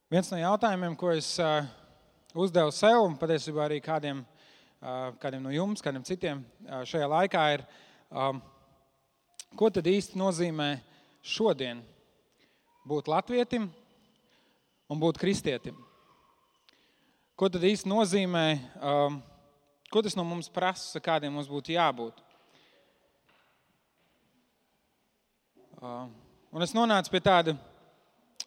Viens no jautājumiem, ko es uzdevu sev un patiesībā arī kādiem no jums, kādiem citiem šajā laikā ir, ko tad īsti nozīmē šodien būt latvietim un būt kristietim? Ko tad īsti nozīmē, ko tas no mums prasa, kādiem mums būtu jābūt? Un es nonācu pie tāda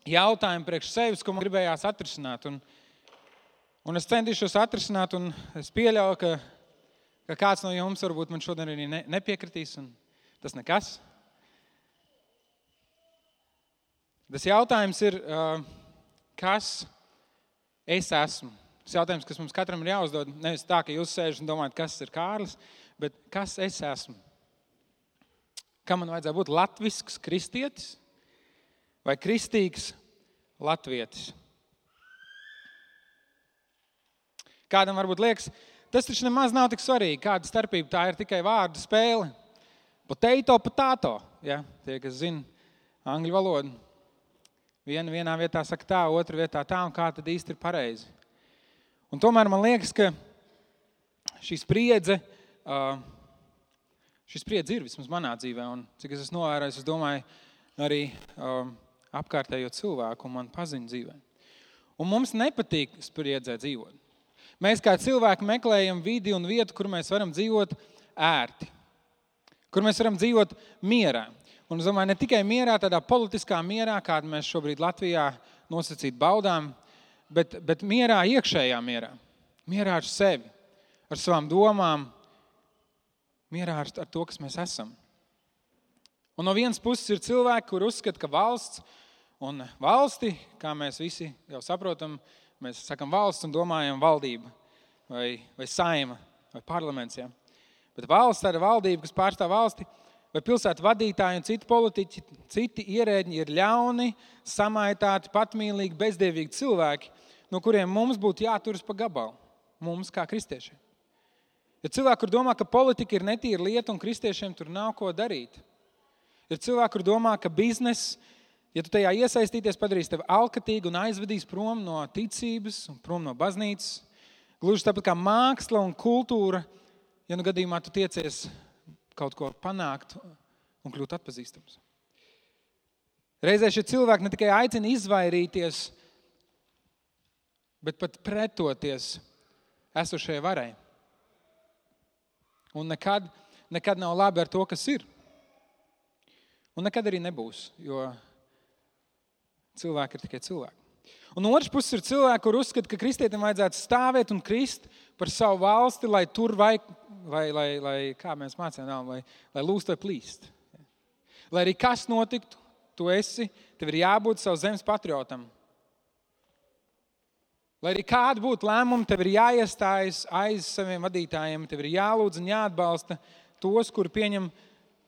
jautājuma priekš sevis, ko man gribējās atrisināt. Un es centīšos atrisināt, un es pieļauju, ka kāds no jums varbūt man šodien arī nepiekritīs, un tas nekas. Tas jautājums ir, kas es esmu? Tas jautājums, kas mums katram ir jāuzdod, nevis tā, ka jūs sēžat un domājat, kas ir Kārlis, bet kas es esmu? Kam man vajadzētu būt latvisks kristietis vai kristīgs latvietis? Kādam varbūt liekas, tas taču nemaz nav tik svarīgi, kāda starpība, tā ir tikai vārdu spēle. Potato, ja? Tie, kas zina angļu valodu. Vienā vietā saka tā, otra vietā tā, un kā tad īsti ir pareizi. Un tomēr man liekas, ka šī spriedze ir vismaz manā dzīvē, un cik es esmu novērojis, es domāju, arī apkārtējo cilvēku un man paziņu dzīvē. Un mums nepatīk spriedzē dzīvot. Mēs kā cilvēki meklējam vidi un vietu, kur mēs varam dzīvot ērti, kur mēs varam dzīvot mierā. Un es domāju, ne tikai mierā, tādā politiskā mierā, kādu mēs šobrīd Latvijā nosacīt baudām, bet mierā, iekšējā mierā. Mierā ar sevi, ar savām domām, mierā ar to, kas mēs esam. Un no vienas puses ir cilvēki, kur uzskata, ka valsts un valsti, kā mēs visi jau saprotam, mēs sakam valsts un domājam valdība vai saima vai parlaments. Ja? Bet valsts, tāda valdība, kas pārstāv valsti, vai pilsētu vadītāji un citi politiķi, citi ierēģi ir ļauni, samaitāti, patmīlīgi, bezdievīgi cilvēki, no kuriem mums būtu jāturas pa gabalu, mums kā kristiešiem. Ir cilvēki, kur domā, ka politika ir netīra lieta un kristiešiem tur nav ko darīt. Ir cilvēki, kur domā, ka biznes, ja tu tajā iesaistīties, padarīs tevi alkatīgu un aizvedīs prom no ticības un prom no baznīcas. Gluži tāpat kā māksla un kultūra, ja nu gadījumā tu tiecies kaut ko panākt un kļūt atpazīstams. Reizē šie cilvēki ne tikai aicina izvairīties, bet pat pretoties esošajai varai. Un nekad nav labi ar to, kas ir. Un nekad arī nebūs, jo cilvēki ir tikai cilvēki. Un otrs puses ir cilvēki, kur uzskata, ka kristietim vajadzētu stāvēt un krist par savu valsti, lai tur vai kā mēs mācījām, lai lūst vai plīst. Lai arī kas notiktu, tev ir jābūt savu zemes patriotam. Lai arī kāda būtu lēmuma, tev ir jāiestājas aiz saviem vadītājiem, tev ir jālūdz un jāatbalsta tos, kuri pieņem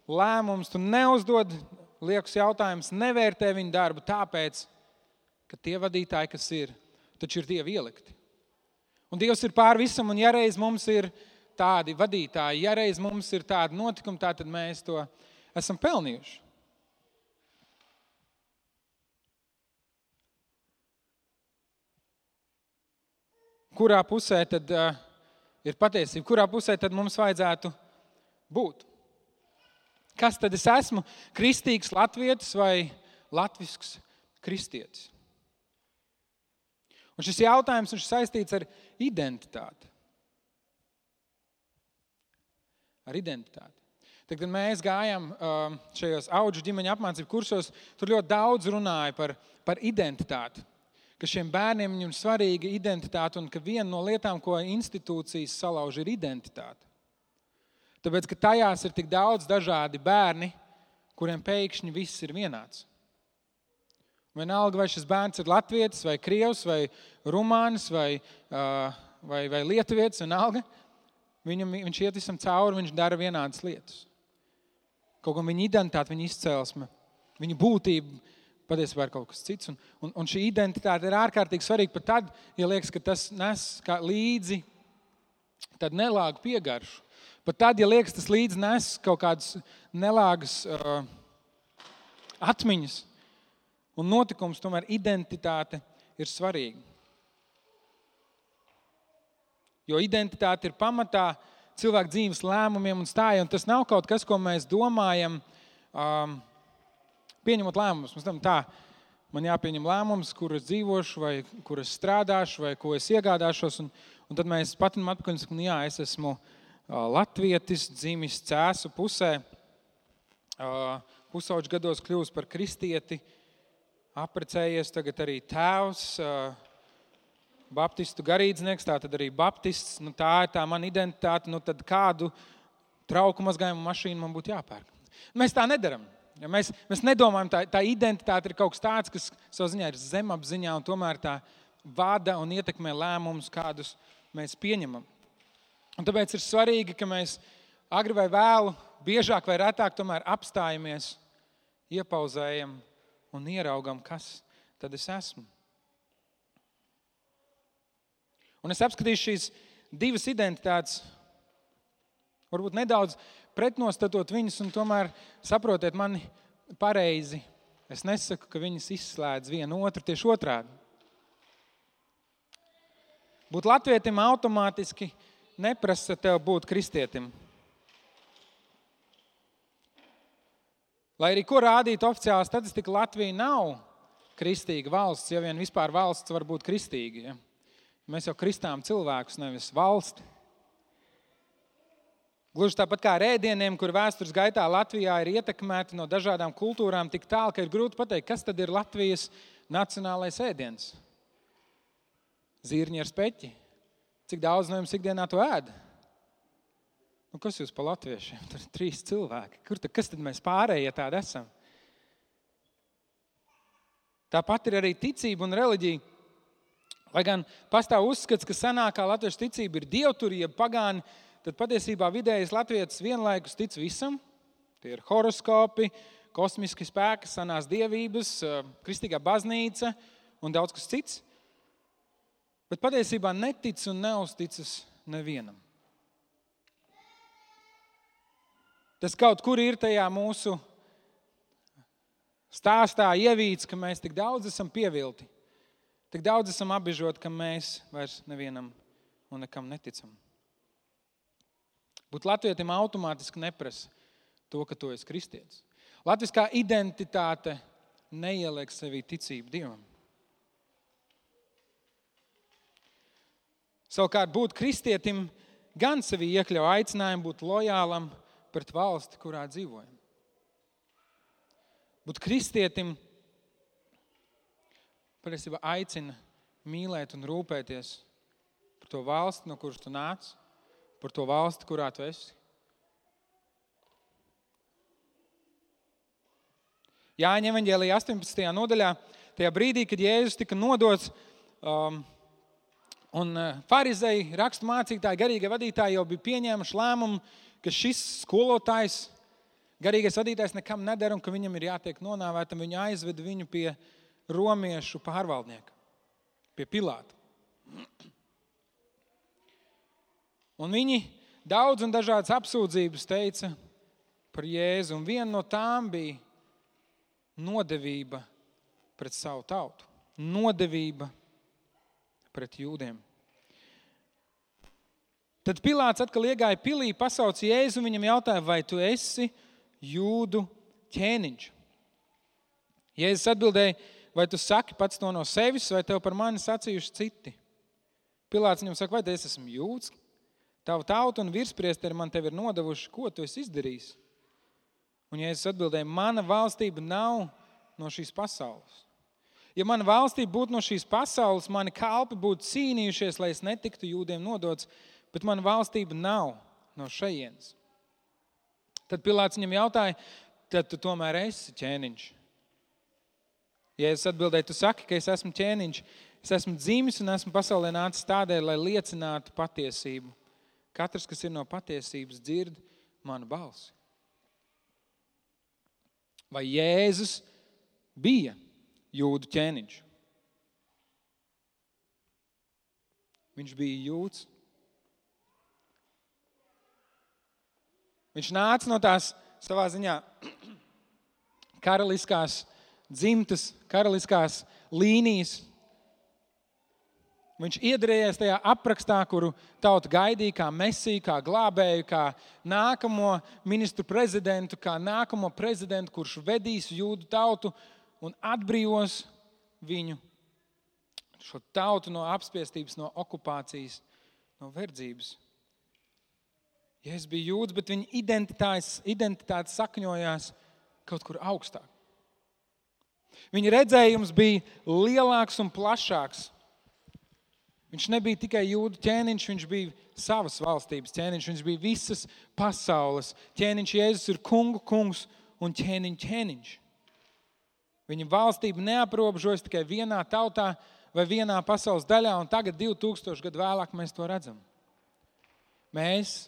lēmumus. Tu neuzdod liekus jautājumus, nevērtē viņu darbu tāpēc, ka tie vadītāji, kas ir, taču ir Dievi ielikti. Un Dievs ir pār visam, un ja reiz mums ir tādi vadītāji, ja reiz mums ir tādi notikumi, tad mēs to esam pelnījuši. Kurā pusē tad ir patiesība? Kurā pusē tad mums vajadzētu būt? Kas tad es esmu? Kristīgs latvietis vai latvisks kristietis? Un šis jautājums ir saistīts ar identitāti. Ar identitāti. Tad, kad mēs gājām šajos Audžu ģimeņa apmācību kursos, tur ļoti daudz runāja par identitāti. Ka šiem bērniem viņam svarīga identitāte un ka viena no lietām, ko institūcijas salauž, ir identitāte. Tāpēc, ka tajās ir tik daudz dažādi bērni, kuriem pēkšņi viss ir vienāds. Vienalga, vai šis bērns ir latvietis, vai krievs, vai rumānis, vai lietuvietis, vienalga, viņš iet visam cauri, viņš dara vienādas lietas. Kaut kā viņa identitāte, viņa izcelsme, viņa būtība, patiesībā ir kaut kas cits. Un šī identitāte ir ārkārtīgi svarīga pat tad, ja liekas, ka tas nes līdzi tādu nelāgu piegaršu. Pat tad, ja liekas, tas līdzi nes kaut kādas nelāgas atmiņas un notikums, tomēr identitāte ir svarīga. Jo identitāte ir pamatā cilvēku dzīves lēmumiem un stājai, un tas nav kaut kas, ko mēs domājam, pieņemot lēmumus. Mēs domājam tā, man jāpieņem lēmums, kur es dzīvošu, vai kur es strādāšu, vai ko es iegādāšos, un tad mēs patinam atpakaļ un sakam, jā, es esmu latvietis, dzimis Cēsu pusē, pusauģu gados kļuvis par kristieti, apprecējies tagad arī tēvs, baptistu garīdznieks, tā tad arī baptists, tā ir tā mana identitāte, tad kādu trauku mazgājumu mašīnu man būtu jāpērk. Mēs tā nedaram. Ja mēs nedomājam, tā identitāte ir kaut kas tāds, kas savā ziņā ir zemapziņā un tomēr tā vada un ietekmē lēmumus, kādus mēs pieņemam. Un tāpēc ir svarīgi, ka mēs agri vai vēlu, biežāk vai retāk tomēr apstājamies, iepauzējam un ieraugam, kas tad es esmu. Un es apskatīšu šīs divas identitātes, varbūt nedaudz pretnostatot viņas, un tomēr saprotiet mani pareizi. Es nesaku, ka viņas izslēdz vienu otru, tieši otrādi. Būt latvietim automātiski neprasa tev būt kristietim. Lai arī ko rādītu oficiālā statistika, Latvija nav kristīga valsts, ja vien vispār valsts var būt kristīga. Ja? Mēs jau kristām cilvēkus, nevis valsti. Gluži tāpat kā ar ēdieniem, kur vēstures gaitā Latvijā ir ietekmēti no dažādām kultūrām tik tālu, ka ir grūti pateikt, kas tad ir Latvijas nacionālais ēdiens. Zirņi ar speķi. Cik daudz no jums ikdienā to ēd? Kas jūs pa latviešiem? Tur ir 3 cilvēki. Kas tad mēs pārējie tādi esam? Tāpat ir arī ticība un reliģija. Lai gan pastāv uzskats, ka senākā latviešu ticība ir dievturība, pagāni, tad patiesībā vidējais latvietis vienlaikus tic visam. Tie ir horoskopi, kosmiski spēki, senās dievības, kristīgā baznīca un daudz kas cits. Bet patiesībā netic un neuzticas nevienam. Tas kaut kur ir tajā mūsu stāstā ievīts, ka mēs tik daudz esam pievilti. Tik daudz esam apbežoti, ka mēs vairs nevienam un nekam neticam. Būt latvietim automātiski neprasa to, ka tu esi kristietis. Latviskā identitāte neieliek sevī ticību Dievam. Savukārt būt kristietim gan sevī iekļauj aicinājumu būt lojālam pret valsti, kurā dzīvojam. Būt kristietim patiesībā aicina mīlēt un rūpēties par to valsti, no kuras tu nāc, par to valsti, kurā tu esi. Jāņa evaņģēlijā 18. nodaļā, tajā brīdī, kad Jēzus tika nodots, un farizeji, rakstu mācītāji, garīgie vadītāji jau bija pieņēmuši lēmumu, ka šis skolotājs, garīgais vadītājs nekam nedara un ka viņam ir jātiek nonāvētam, viņu aizved viņu pie romiešu pārvaldnieka, pie Pilāta. Un viņi daudz un dažādas apsūdzības teica par Jēzu, un viena no tām bija nodevība pret savu tautu, nodevība pret jūdiem. Tad Pilāts atkal iegāja pilī, pasauca Jēzu un viņam jautāja, vai tu esi jūdu ķēniņš? Jēzus atbildēja, vai tu saki pats to no sevis, vai tev par mani sacījuši citi? Pilāts viņam saka, vai es esmu jūds? Tavu tautu un virspriesteri man tevi ir nodevuši, ko tu esi izdarījis? Un Jēzus atbildēja, mana valstība nav no šīs pasaules. Ja mana valstība būtu no šīs pasaules, mani kalpi būtu cīnījušies, lai es netiktu jūdiem nodots, bet mana valstība nav no šejienes. Tad Pilāts viņam jautāja, tad tu tomēr esi ķēniņš. Jēzus atbildēja, tu saki, ka es esmu ķēniņš, es esmu dzimis un esmu pasaulē nācis tādēļ, lai liecinātu patiesību. Katrs, kas ir no patiesības, dzird manu balsi. Vai Jēzus bija jūdu ķēniņš? Viņš bija jūds. Viņš nāca no tās savā ziņā karaliskās dzimtas, karaliskās līnijas, Viņš iedarējies tajā aprakstā, kuru tauta gaidīja kā mesiju, kā glābēju, kā nākamo ministru prezidentu, kā nākamo prezidentu, kurš vedīs jūdu tautu un atbrīvos viņu, šo tautu no apspiestības, no okupācijas, no verdzības. Jēzus bija jūds, bet viņa identitāte sakņojās kaut kur augstāk. Viņa redzējums bija lielāks un plašāks. Viņš nebija tikai jūdu ķēniņš, viņš bija savas valstības ķēniņš, viņš bija visas pasaules ķēniņš. Jēzus ir kungu kungs un ķēniņš. Viņa valstība neaprobežojas tikai vienā tautā vai vienā pasaules daļā, un tagad 2000 gadu vēlāk mēs to redzam. Mēs,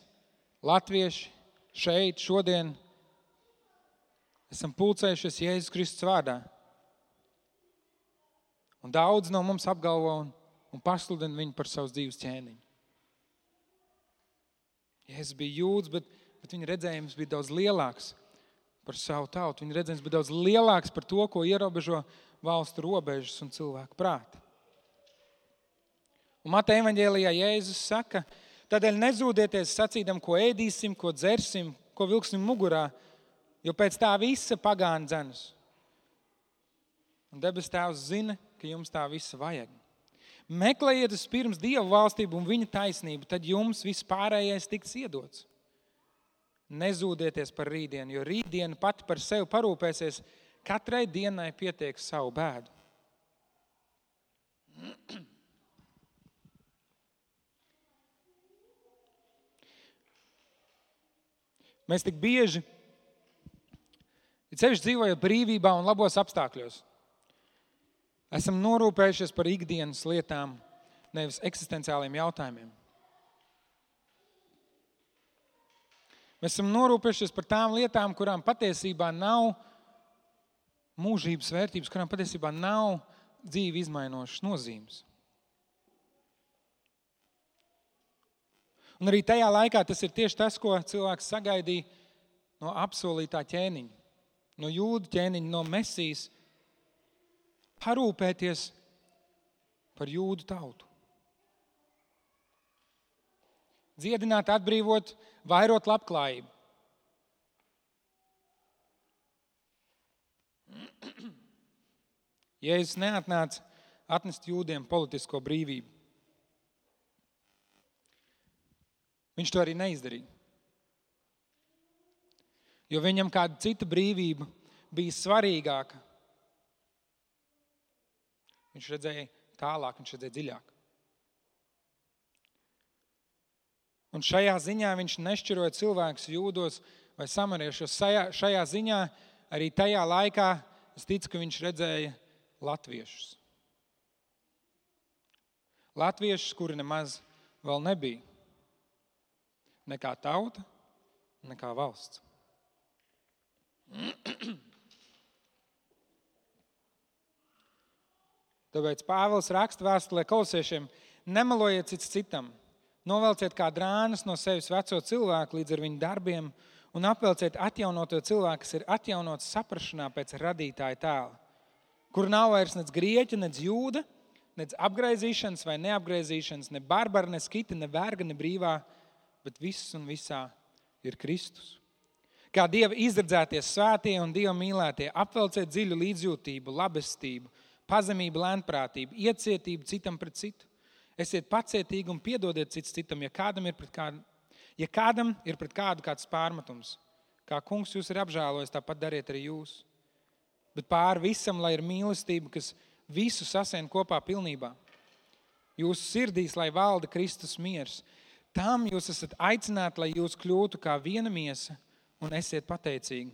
latvieši, šeit, šodien, esam pulcējušies Jēzus Kristus vārdā. Un daudz no mums apgalvo un pasludina viņu par savas dzīves ķēniņu. Jēzus bija jūds, bet viņa redzējums bija daudz lielāks par savu tautu. Viņa redzējums bija daudz lielāks par to, ko ierobežo valstu robežas un cilvēku prāti. Un Mateja evaņģēlijā Jēzus saka, tādēļ nezūdieties sacīdam, ko ēdīsim, ko dzersim, ko vilksim mugurā, jo pēc tā visa pagāni dzenas. Un debes Tēvs zina, ka jums tā visa vajag. Meklējiet pirms Dieva valstību un viņa taisnību, tad jums viss pārējais tiks iedots. Nezūdieties par rītdienu, jo rītdiena pati par sevi parūpēsies, katrai dienai pietiek savu bēdu. Mēs tik bieži, sevišķi dzīvojot brīvībā un labos apstākļos, esam norūpējušies par ikdienas lietām, nevis eksistenciāliem jautājumiem. Mēs esam norūpējušies par tām lietām, kurām patiesībā nav mūžības vērtības, kurām patiesībā nav dzīvi izmainošas nozīmes. Un arī tajā laikā tas ir tieši tas, ko cilvēks sagaidīja no apsolītā ķēniņa, no jūdu ķēniņa, no Mesijas, parūpēties par jūdu tautu. Dziedināt, atbrīvot, vairot labklājību. Jēzus neatnāca atnest jūdiem politisko brīvību. Viņš to arī neizdarīja. Jo viņam kāda cita brīvība bija svarīgāka. Viņš redzēja tālāk, viņš redzēja dziļāk. Un šajā ziņā viņš nešķiroja cilvēkus jūdos vai samariešos. Šajā ziņā arī tajā laikā es ticu, ka viņš redzēja latviešus. Latviešus, kuri nemaz vēl nebija. Ne kā tauta, ne kā valsts. Tāpēc Pāvils raksta vēstulē Kolosiešiem, nemelojiet cits citam, novelciet kā drānas no sevis veco cilvēku līdz ar viņu darbiem un apvelciet atjaunoto cilvēku, kas ir atjaunots saprašanā pēc radītāja tēla, kur nav vairs nec grieķa, nec jūda, nec apgraizīšanas vai neapgraizīšanas, ne barbara, ne skita, ne verga, ne brīvā, bet viss un visā ir Kristus. Kā Dieva izredzētie svētie un Dieva mīlētie, apvelciet dziļu līdzjūtību, labestību, pazemību, lēnprātību, iecietību citam pret citu. Esiet pacietīgi un piedodiet cits citam, ja kādam ir pret kādu kāds pārmetums. Kā kungs jūs ir apžēlojis, tāpat dariet arī jūs. Bet pāri visam, lai ir mīlestība, kas visu sasien kopā pilnībā. Jūsu sirdīs, lai valda Kristus miers. Tam jūs esat aicināti, lai jūs kļūtu kā viena miesa un esiet pateicīgi.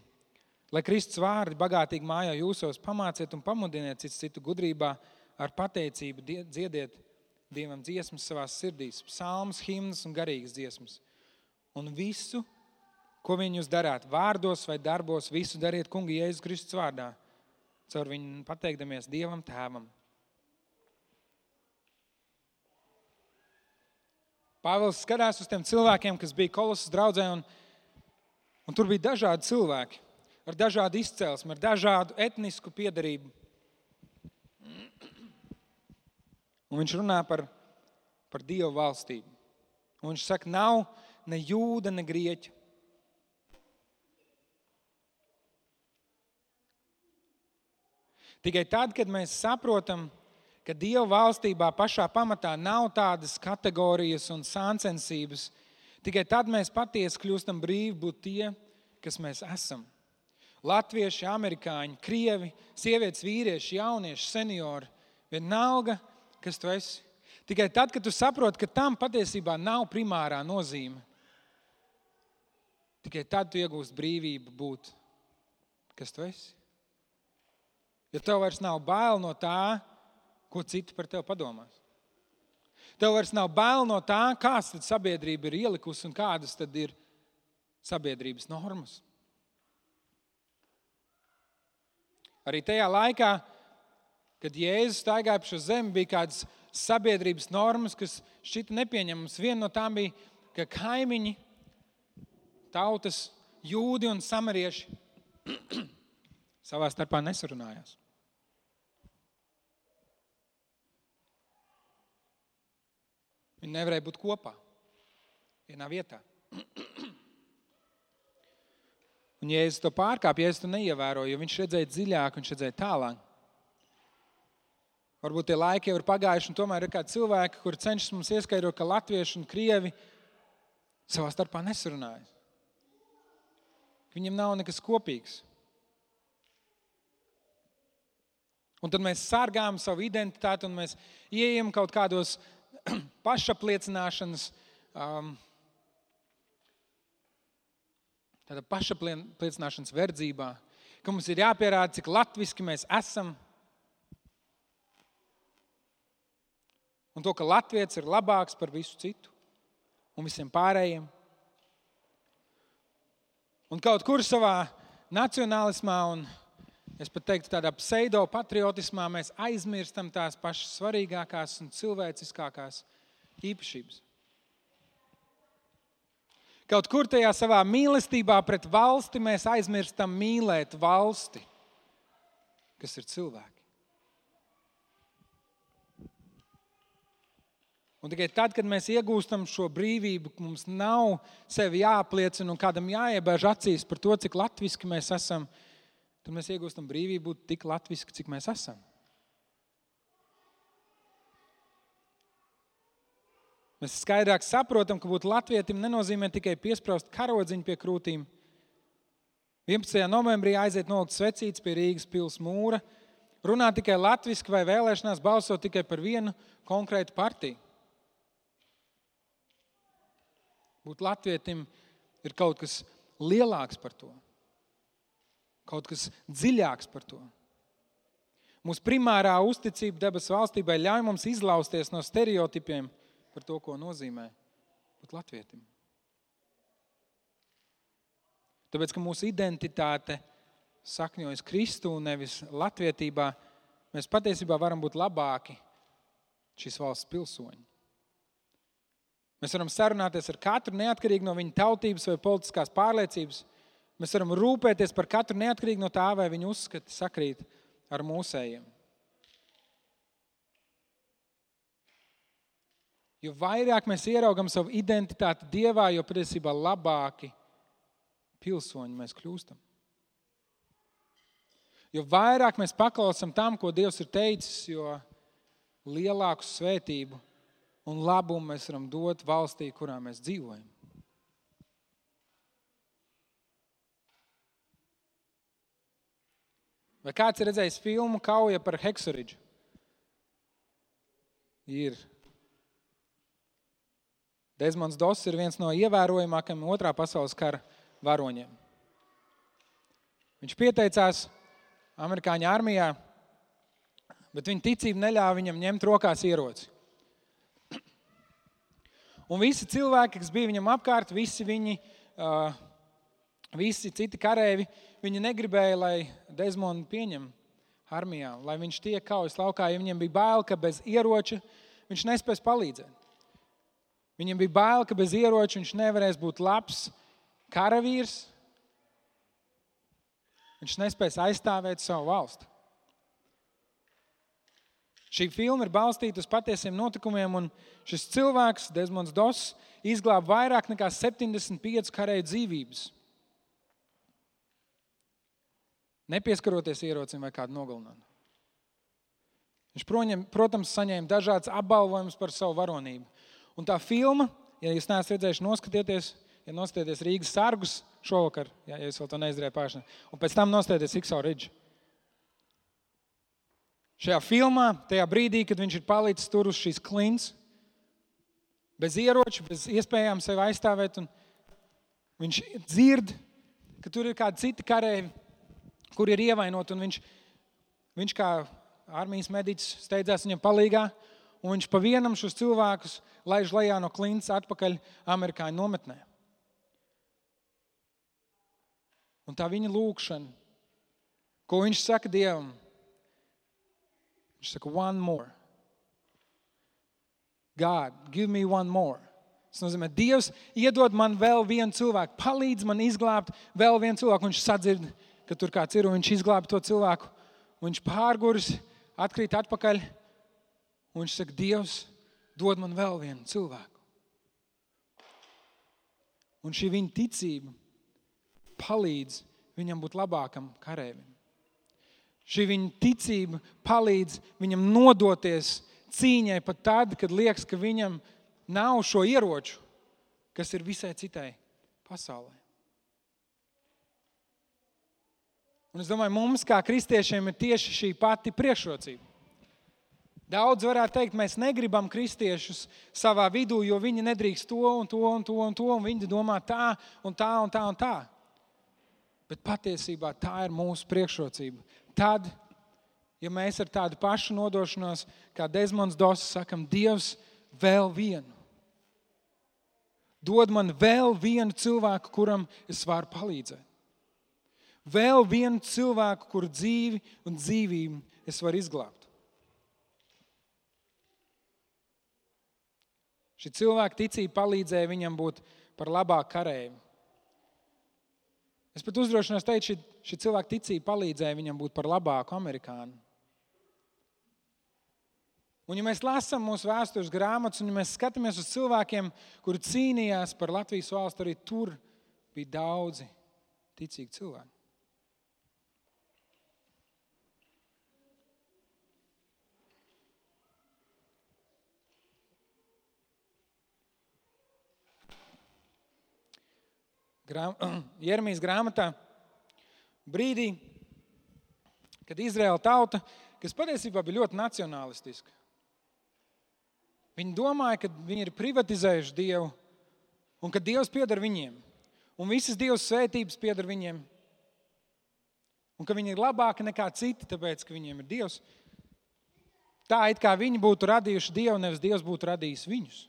Lai Kristus vārdi bagātīgi mājā jūsos, pamāciet un pamudiniet citu gudrībā, ar pateicību dziediet Dievam dziesmas savās sirdīs, psalmas, himnas un garīgas dziesmas. Un visu, ko viņi jūs darāt, vārdos vai darbos, visu dariet kunga Jēzus Kristus vārdā, caur viņu pateikdamies Dievam Tēvam. Pāvils skatās uz tiem cilvēkiem, kas bija Kolosas draudzē, un tur bija dažādi cilvēki. Ar dažādu izcelsmi, ar dažādu etnisku piedarību. Un viņš runā par par Dievu valstību. Un viņš saka, nav ne jūda, ne grieķa. Tikai tad, kad mēs saprotam, ka Dieva valstībā pašā pamatā nav tādas kategorijas un sāncensības, tikai tad mēs patiesi kļūstam brīvi būt tie, kas mēs esam. Latvieši, amerikāņi, krievi, sievietes, vīrieši, jaunieši, seniori, vienalga, kas tu esi. Tikai tad, kad tu saproti, ka tam patiesībā nav primārā nozīme, tikai tad tu iegūst brīvību būt, kas tu esi. Jo tev vairs nav bail no tā, ko citi par tevi padomās. Tev vairs nav bail no tā, kāds tad sabiedrība ir ielikusi un kādas tad ir sabiedrības normas. Arī tajā laikā, kad Jēzus staigāja pa šo zemi, bija kādas sabiedrības normas, kas šķita nepieņemamas. Viena no tām bija, ka kaimiņi, tautas, jūdi un samarieši savā starpā nesarunājās. Viņi nevarēja būt kopā vienā vietā. Un Jēzus to pārkāpa, Jēzus to neievēroja, jo viņš redzēja dziļāk, viņš redzēja tālāk. Varbūt tie laiki jau ir pagājuši, un tomēr ir kādi cilvēki, kuri cenšas mums ieskaidrot, ka latvieši un krievi savā starpā nesarunājas. Viņiem nav nekas kopīgs. Un tad mēs sargājam savu identitāti un mēs ieejam kaut kādos pašapliecināšanas, tāda pašapliecināšanas verdzībā, ka mums ir jāpierāda, cik latviski mēs esam. Un to, ka latvietis ir labāks par visu citu un visiem pārējiem. Un kaut kur savā nacionālismā un, es pat teiktu, tādā pseido-patriotismā mēs aizmirstam tās pašas svarīgākās un cilvēciskākās īpašības. Kaut kur tajā savā mīlestībā pret valsti mēs aizmirstam mīlēt valsti, kas ir cilvēki. Un tikai tad, kad mēs iegūstam šo brīvību, mums nav sevi jāapliecina un kādam jāiebēž acīs par to, cik latviski mēs esam, tad mēs iegūstam brīvību būt tik latviski, cik mēs esam. Mēs skaidrāk saprotam, ka būt latvietim nenozīmē tikai piespraust karodziņu pie krūtīm. 11. novembrī aiziet nolikt svecītes pie Rīgas pils mūra, runāt tikai latviski vai vēlēšanās balsot tikai par vienu konkrētu partiju. Būt latvietim ir kaut kas lielāks par to. Kaut kas dziļāks par to. Mūsu primārā uzticība debesu valstībai ļauj mums izlausties no stereotipiem par to, ko nozīmē būt latvietim. Tāpēc, ka mūsu identitāte sakņojas Kristu un nevis latvietībā, mēs patiesībā varam būt labāki šīs valsts pilsoņi. Mēs varam sarunāties ar katru neatkarīgi no viņa tautības vai politiskās pārliecības. Mēs varam rūpēties par katru neatkarīgi no tā, vai viņa uzskati sakrīt ar mūsējiem. Jo vairāk mēs ieraugam savu identitāti Dievā, jo patiesībā labāki pilsoņi mēs kļūstam. Jo vairāk mēs paklausam tam, ko Dievs ir teicis, jo lielāku svētību un labumu mēs varam dot valstī, kurā mēs dzīvojam. Vai kāds ir redzējis filmu Kauja par Heksoridžu? Ir. Desmonds Doss ir viens no ievērojamākajiem Otrā pasaules kara varoņiem. Viņš pieteicās amerikāņu armijā, bet viņa ticība neļāva viņam ņemt rokās ieroci. Un visi cilvēki, kas bija viņam apkārt, visi citi karēvi, viņi negribēja, lai Desmondu pieņem armijā, lai viņš tiek kaujas laukā, jo viņiem bija bail, ka bez ieroča viņš nespēs palīdzēt. Viņiem bija bail, ka bez ieroča viņš nevarēs būt labs karavīrs, viņš nespēs aizstāvēt savu valsti. Šī filma ir balstīta uz patiesiem notikumiem, un šis cilvēks, Desmonds Doss, izglāba vairāk nekā 75 karēju dzīvības. Nepieskaroties ierocim vai kādu nogalinājumu. Viņš, protams, saņēma dažādas apbalvojumus par savu varonību. Un tā filma, ja jūs neesat redzējuši, noskatieties Rīgas sargus šovakar, ja jūs vēl to neizdarījāt pagājušajā, un pēc tam noskatieties Ikso Ridge. Šajā filmā, tajā brīdī, kad viņš ir palicis tur uz šīs klints, bez ieroču, bez iespējām sevi aizstāvēt, un viņš dzird, ka tur ir kādi citi karēji, kur ir ievainoti, un viņš kā armijas mediķis steidzās viņam palīgā, un viņš pa vienam šos cilvēkus laiž lejā no klints atpakaļ amerikāņu nometnē. Un tā viņa lūkšana, ko viņš saka Dievam, viņš saka, one more. God, give me one more. Tas nozīmē, Dievs iedod man vēl vienu cilvēku, palīdz man izglābt vēl vienu cilvēku. Viņš sadzird, ka tur kāds ir, un viņš izglāb to cilvēku. Un viņš pārguris, atkrīt atpakaļ, un viņš saka, Dievs, dod man vēl vienu cilvēku. Un šī viņa ticība palīdz viņam būt labākam karēvim. Šī viņa ticība palīdz viņam nodoties cīņai pat tad, kad liekas, ka viņam nav šo ieroču, kas ir visai citai pasaulē. Un es domāju, mums kā kristiešiem ir tieši šī pati priekšrocība. Daudz varētu teikt, mēs negribam kristiešus savā vidū, jo viņi nedrīkst to un to un to un to, un viņi domā tā un tā un tā un tā. Bet patiesībā tā ir mūsu priekšrocība. Tad, ja mēs ar tādu pašu nodošanos, kā Desmonds Doss, sakam, Dievs, vēl vienu. Dod man vēl vienu cilvēku, kuram es varu palīdzēt. Vēl vienu cilvēku, kuru dzīvi un dzīvību es varu izglābt. Šī cilvēka ticība palīdzēja viņam būt par labāku karēju. Es pat uzdrošinos teikt, šī cilvēka ticība palīdzēja viņam būt par labāku amerikānu. Un ja mēs lasām mūsu vēstures grāmatas, un ja mēs skatāmies uz cilvēkiem, kuri cīnījās par Latvijas valstu, arī tur bija daudzi ticīgi cilvēki. Jeremijas grāmatā brīdī, kad Izraēla tauta, kas patiesībā bija ļoti nacionalistiska. Viņi domāja, ka viņi ir privatizējuši Dievu un ka Dievs pieder viņiem. Un visas Dievs svētības pieder viņiem. Un ka viņi ir labāki nekā citi, tāpēc, ka viņiem ir Dievs. Tā it kā viņi būtu radījuši Dievu, nevis Dievs būtu radījis viņus.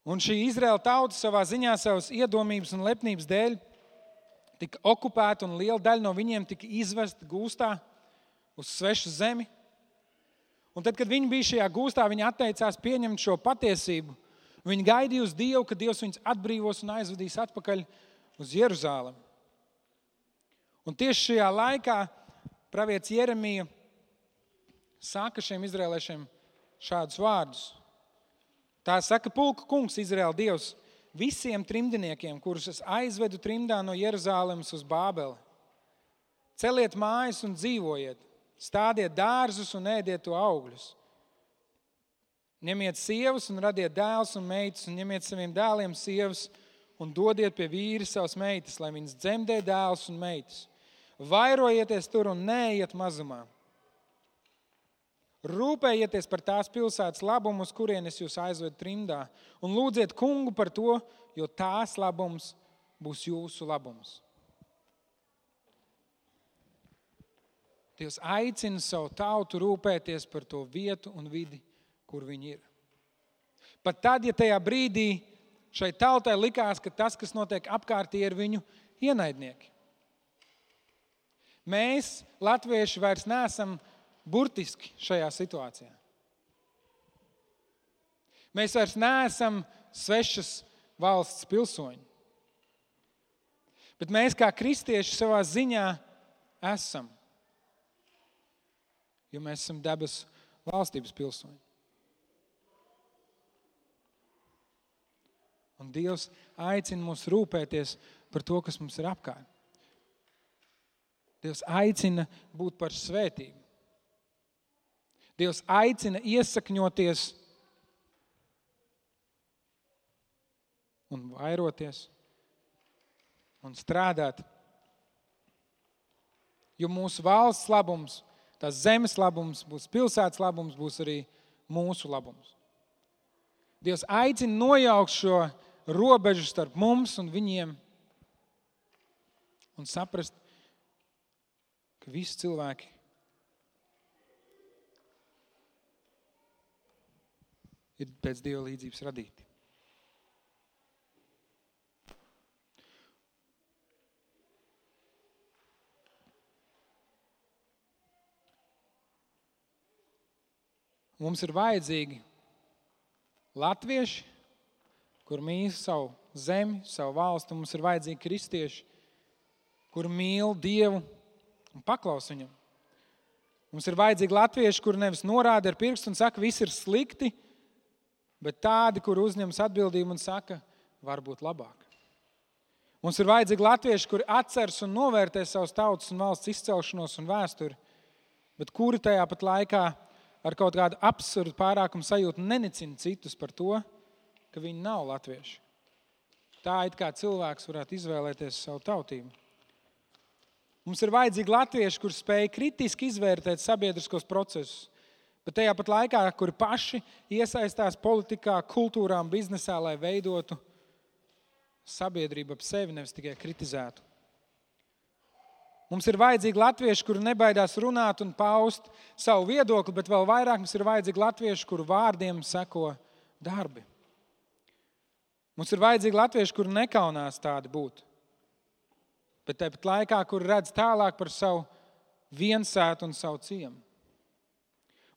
Un šī Izraēla tauta savā ziņā savas iedomības un lepnības dēļ tika okupēta un liela daļa no viņiem tika izvesta gūstā uz svešu zemi. Un tad, kad viņi bija šajā gūstā, viņi atteicās pieņemt šo patiesību. Viņi gaidīja uz Dievu, ka Dievs viņus atbrīvos un aizvedīs atpakaļ uz Jeruzālemi. Un tieši šajā laikā pravietis Jeremija saka šiem izraēliešiem šādus vārdus. Tā saka pulka kungs, Izraēla Dievs, visiem trimdniekiem, kurus es aizvedu trimdā no Jeruzālemes uz Bābeli. Celiet mājas un dzīvojiet, stādiet dārzus un ēdiet to augļus. Ņemiet sievas un radiet dēlus un meitas, un ņemiet saviem dēliem sievas un dodiet pie vīri savas meitas, lai viņas dzemdē dēlus un meitas. Vairojieties tur un neejiet mazumā. Rūpējieties par tās pilsētas labumu, uz kurienes jūs aizvedu trimdā, un lūdziet kungu par to, jo tās labums būs jūsu labums. Dievs aicina savu tautu rūpēties par to vietu un vidi, kur viņi ir. Pat tad, ja tajā brīdī šai tautai likās, ka tas, kas notiek apkārtī, ir viņu ienaidnieki. Mēs, latvieši, vairs neesam burtiski šajā situācijā. Mēs vairs neesam svešas valsts pilsoņi. Bet mēs kā kristieši savā ziņā esam. jo mēs esam debesu valstības pilsoņi. Un Dievs aicina mūs rūpēties par to, kas mums ir apkārt. Dievs aicina būt par svētību. Dievs aicina iesakņoties un vairoties un strādāt. Jo mūsu valsts labums, tās zemes labums, būs pilsētas labums, būs arī mūsu labums. Dievs aicina nojaukt šo robežu starp mums un viņiem un saprast, ka visi cilvēki ir pēc Dieva līdzības radīti. Mums ir vajadzīgi latvieši, kur mīl savu zemi, savu valstu. Mums ir vajadzīgi kristieši, kur mīl Dievu un paklaus viņam. Mums ir vajadzīgi latvieši, kur nevis norāda ar pirkstu un saka, viss ir slikti, bet tādi, kur uzņemas atbildību un saka, var būt labāk. Mums ir vajadzīgi latvieši, kuri atceras un novērtē savas tautas un valsts izcelšanos un vēsturi, bet kuri tajā pat laikā ar kaut kādu absurdu pārākumu sajūtu nenicina citus par to, ka viņi nav latvieši. Tā it kā cilvēks varētu izvēlēties savu tautību. Mums ir vajadzīgi latvieši, kur spēj kritiski izvērtēt sabiedriskos procesus, bet tajā pat laikā, kuri paši iesaistās politikā, kultūrā un biznesā, lai veidotu sabiedrību ap sevi, nevis tikai kritizētu. Mums ir vajadzīgi latvieši, kuri nebaidās runāt un paust savu viedokli, bet vēl vairāk mums ir vajadzīgi latvieši, kuru vārdiem seko darbi. Mums ir vajadzīgi latvieši, kuri nekaunās tādi būt, bet tāpat laikā, kuri redz tālāk par savu viensētu un savu ciemu.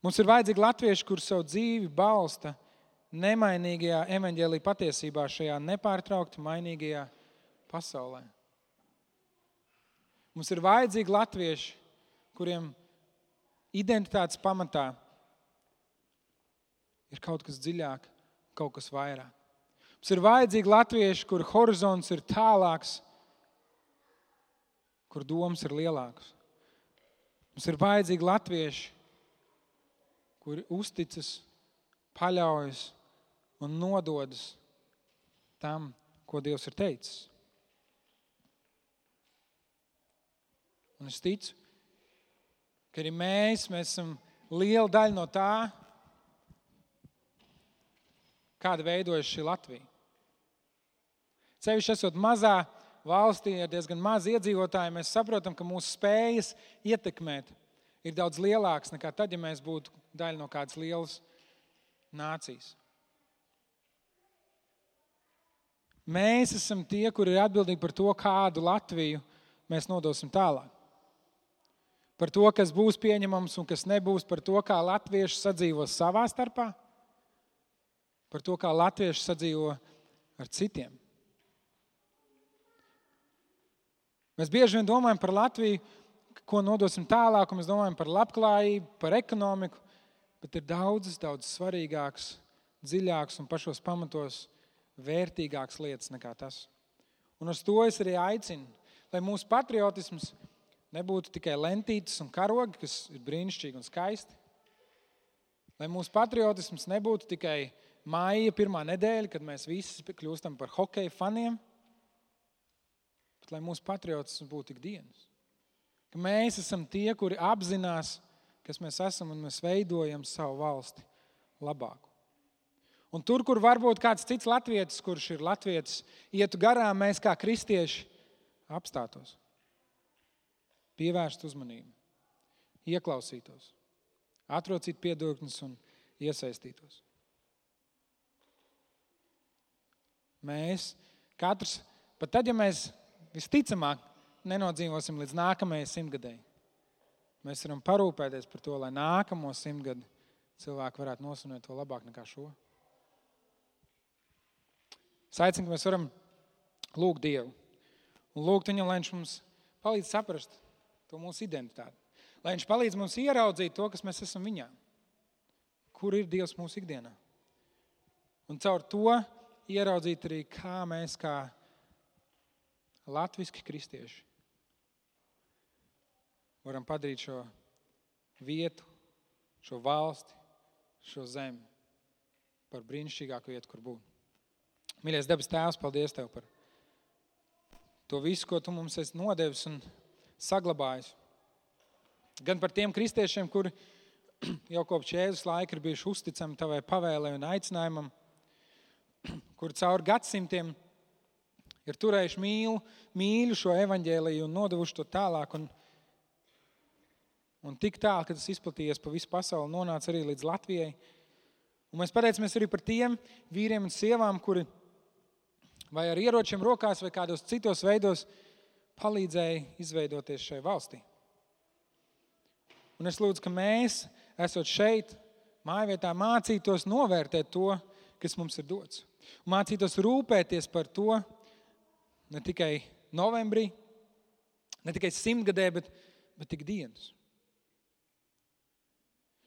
Mums ir vajadzīgi latvieši, kuri savu dzīvi balsta nemainīgajā evaņģēlija patiesībā šajā nepārtraukti mainīgajā pasaulē. Mums ir vajadzīgi latvieši, kuriem identitātes pamatā ir kaut kas dziļāk, kaut kas vairāk. Mums ir vajadzīgi latvieši, kur horizonts ir tālāks, kur domas ir lielākas. Mums ir vajadzīgi latvieši, kuri uzticas, paļaujas un nododas tam, ko Dievs ir teicis. Un es ticu, ka arī mēs esam liela daļa no tā, kāda veidojas šī Latvija. Sevišķi esot mazā valstī ar diezgan maz iedzīvotāji, mēs saprotam, ka mūsu spējas ietekmēt ir daudz lielākas nekā tad, ja mēs būtu daļa no kādas lielas nācijas. Mēs esam tie, kuri ir atbildīgi par to, kādu Latviju mēs nodosim tālāk. Par to, kas būs pieņemams un kas nebūs, par to, kā latvieši sadzīvo savā starpā, par to, kā latvieši sadzīvo ar citiem. Mēs bieži vien domājam par Latviju, ko nodosim tālāk, un mēs domājam par labklājību, par ekonomiku, bet ir daudz svarīgāks, dziļāks un pašos pamatos vērtīgāks lietas nekā tas. Un uz to es arī aicinu, lai mūsu patriotisms nebūtu tikai lentītes un karogi, kas ir brīnišķīgi un skaisti. Lai mūsu patriotisms nebūtu tikai maija pirmā nedēļa, kad mēs visi kļūstam par hokeja faniem, bet lai mūsu patriotisms būtu ikdienas. Ka mēs esam tie, kuri apzinās, kas mēs esam un mēs veidojam savu valsti labāku. Un tur, kur varbūt kāds cits latvietis, kurš ir latvietis, ietu garām, mēs kā kristieši apstātos. Pievērst uzmanību, ieklausītos, atrocīt piedurknes un iesaistītos. Mēs katrs, pat tad, ja mēs visticamāk nenodzīvosim līdz nākamajai 100-gadēji, mēs varam parūpēties par to, lai nākamo 100 gadu cilvēki varētu nosvinēt to labāk nekā šo. Es aicinu, ka mēs varam lūgt Dievu un lūgt viņam, lai viņš mums palīdz saprast to mūsu identitāti. Lai viņš palīdz mums ieraudzīt to, kas mēs esam viņā. Kur ir Dievs mūsu ikdienā? Un caur to ieraudzīt arī, kā mēs kā latviski kristieši varam padarīt šo vietu, šo valsti, šo zemi par brīnišķīgāku vietu, kur būt. Mīļais debes Tēvs, paldies Tev par to visu, ko Tu mums esi nodevis un saglabājis. Gan par tiem kristiešiem, kuri jau kopš Jēzus laika ir bijuši uzticami Tavai pavēlei un aicinājumam, kuri caur gadsimtiem ir turējuši mīļu šo evaņģēliju un nodevuši to tālāk. Un tik tālu, ka tas izplatījies pa visu pasauli, nonāca arī līdz Latvijai. Un mēs pateicamies arī par tiem vīriem un sievām, kuri vai ar ieročiem rokās vai kādos citos veidos palīdzēja izveidoties šai valstī. Un es lūdzu, ka mēs, esot šeit, mājvietā, mācītos novērtēt to, kas mums ir dots. Un mācītos rūpēties par to ne tikai novembrī, ne tikai 100-gadē, bet tik dienas.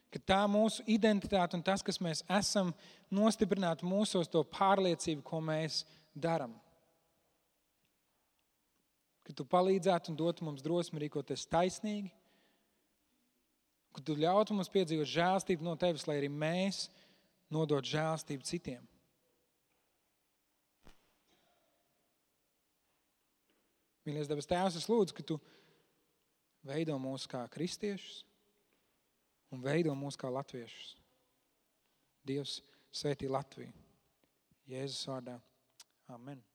Ka tā mūsu identitāte un tas, kas mēs esam, nostiprinātu mūsos to pārliecību, ko mēs daram. Ka Tu palīdzētu un dotu mums drosmi rīkoties taisnīgi, ka Tu ļautu mums piedzīvot žēlstību no Tevis, lai arī mēs nodot žēlstību citiem. Mīļais debes Tēvs, es lūdzu, ka Tu veido mūs kā kristiešus un veido mūs kā latviešus. Dievs svētī Latviju. Jēzus vārdā. Amen.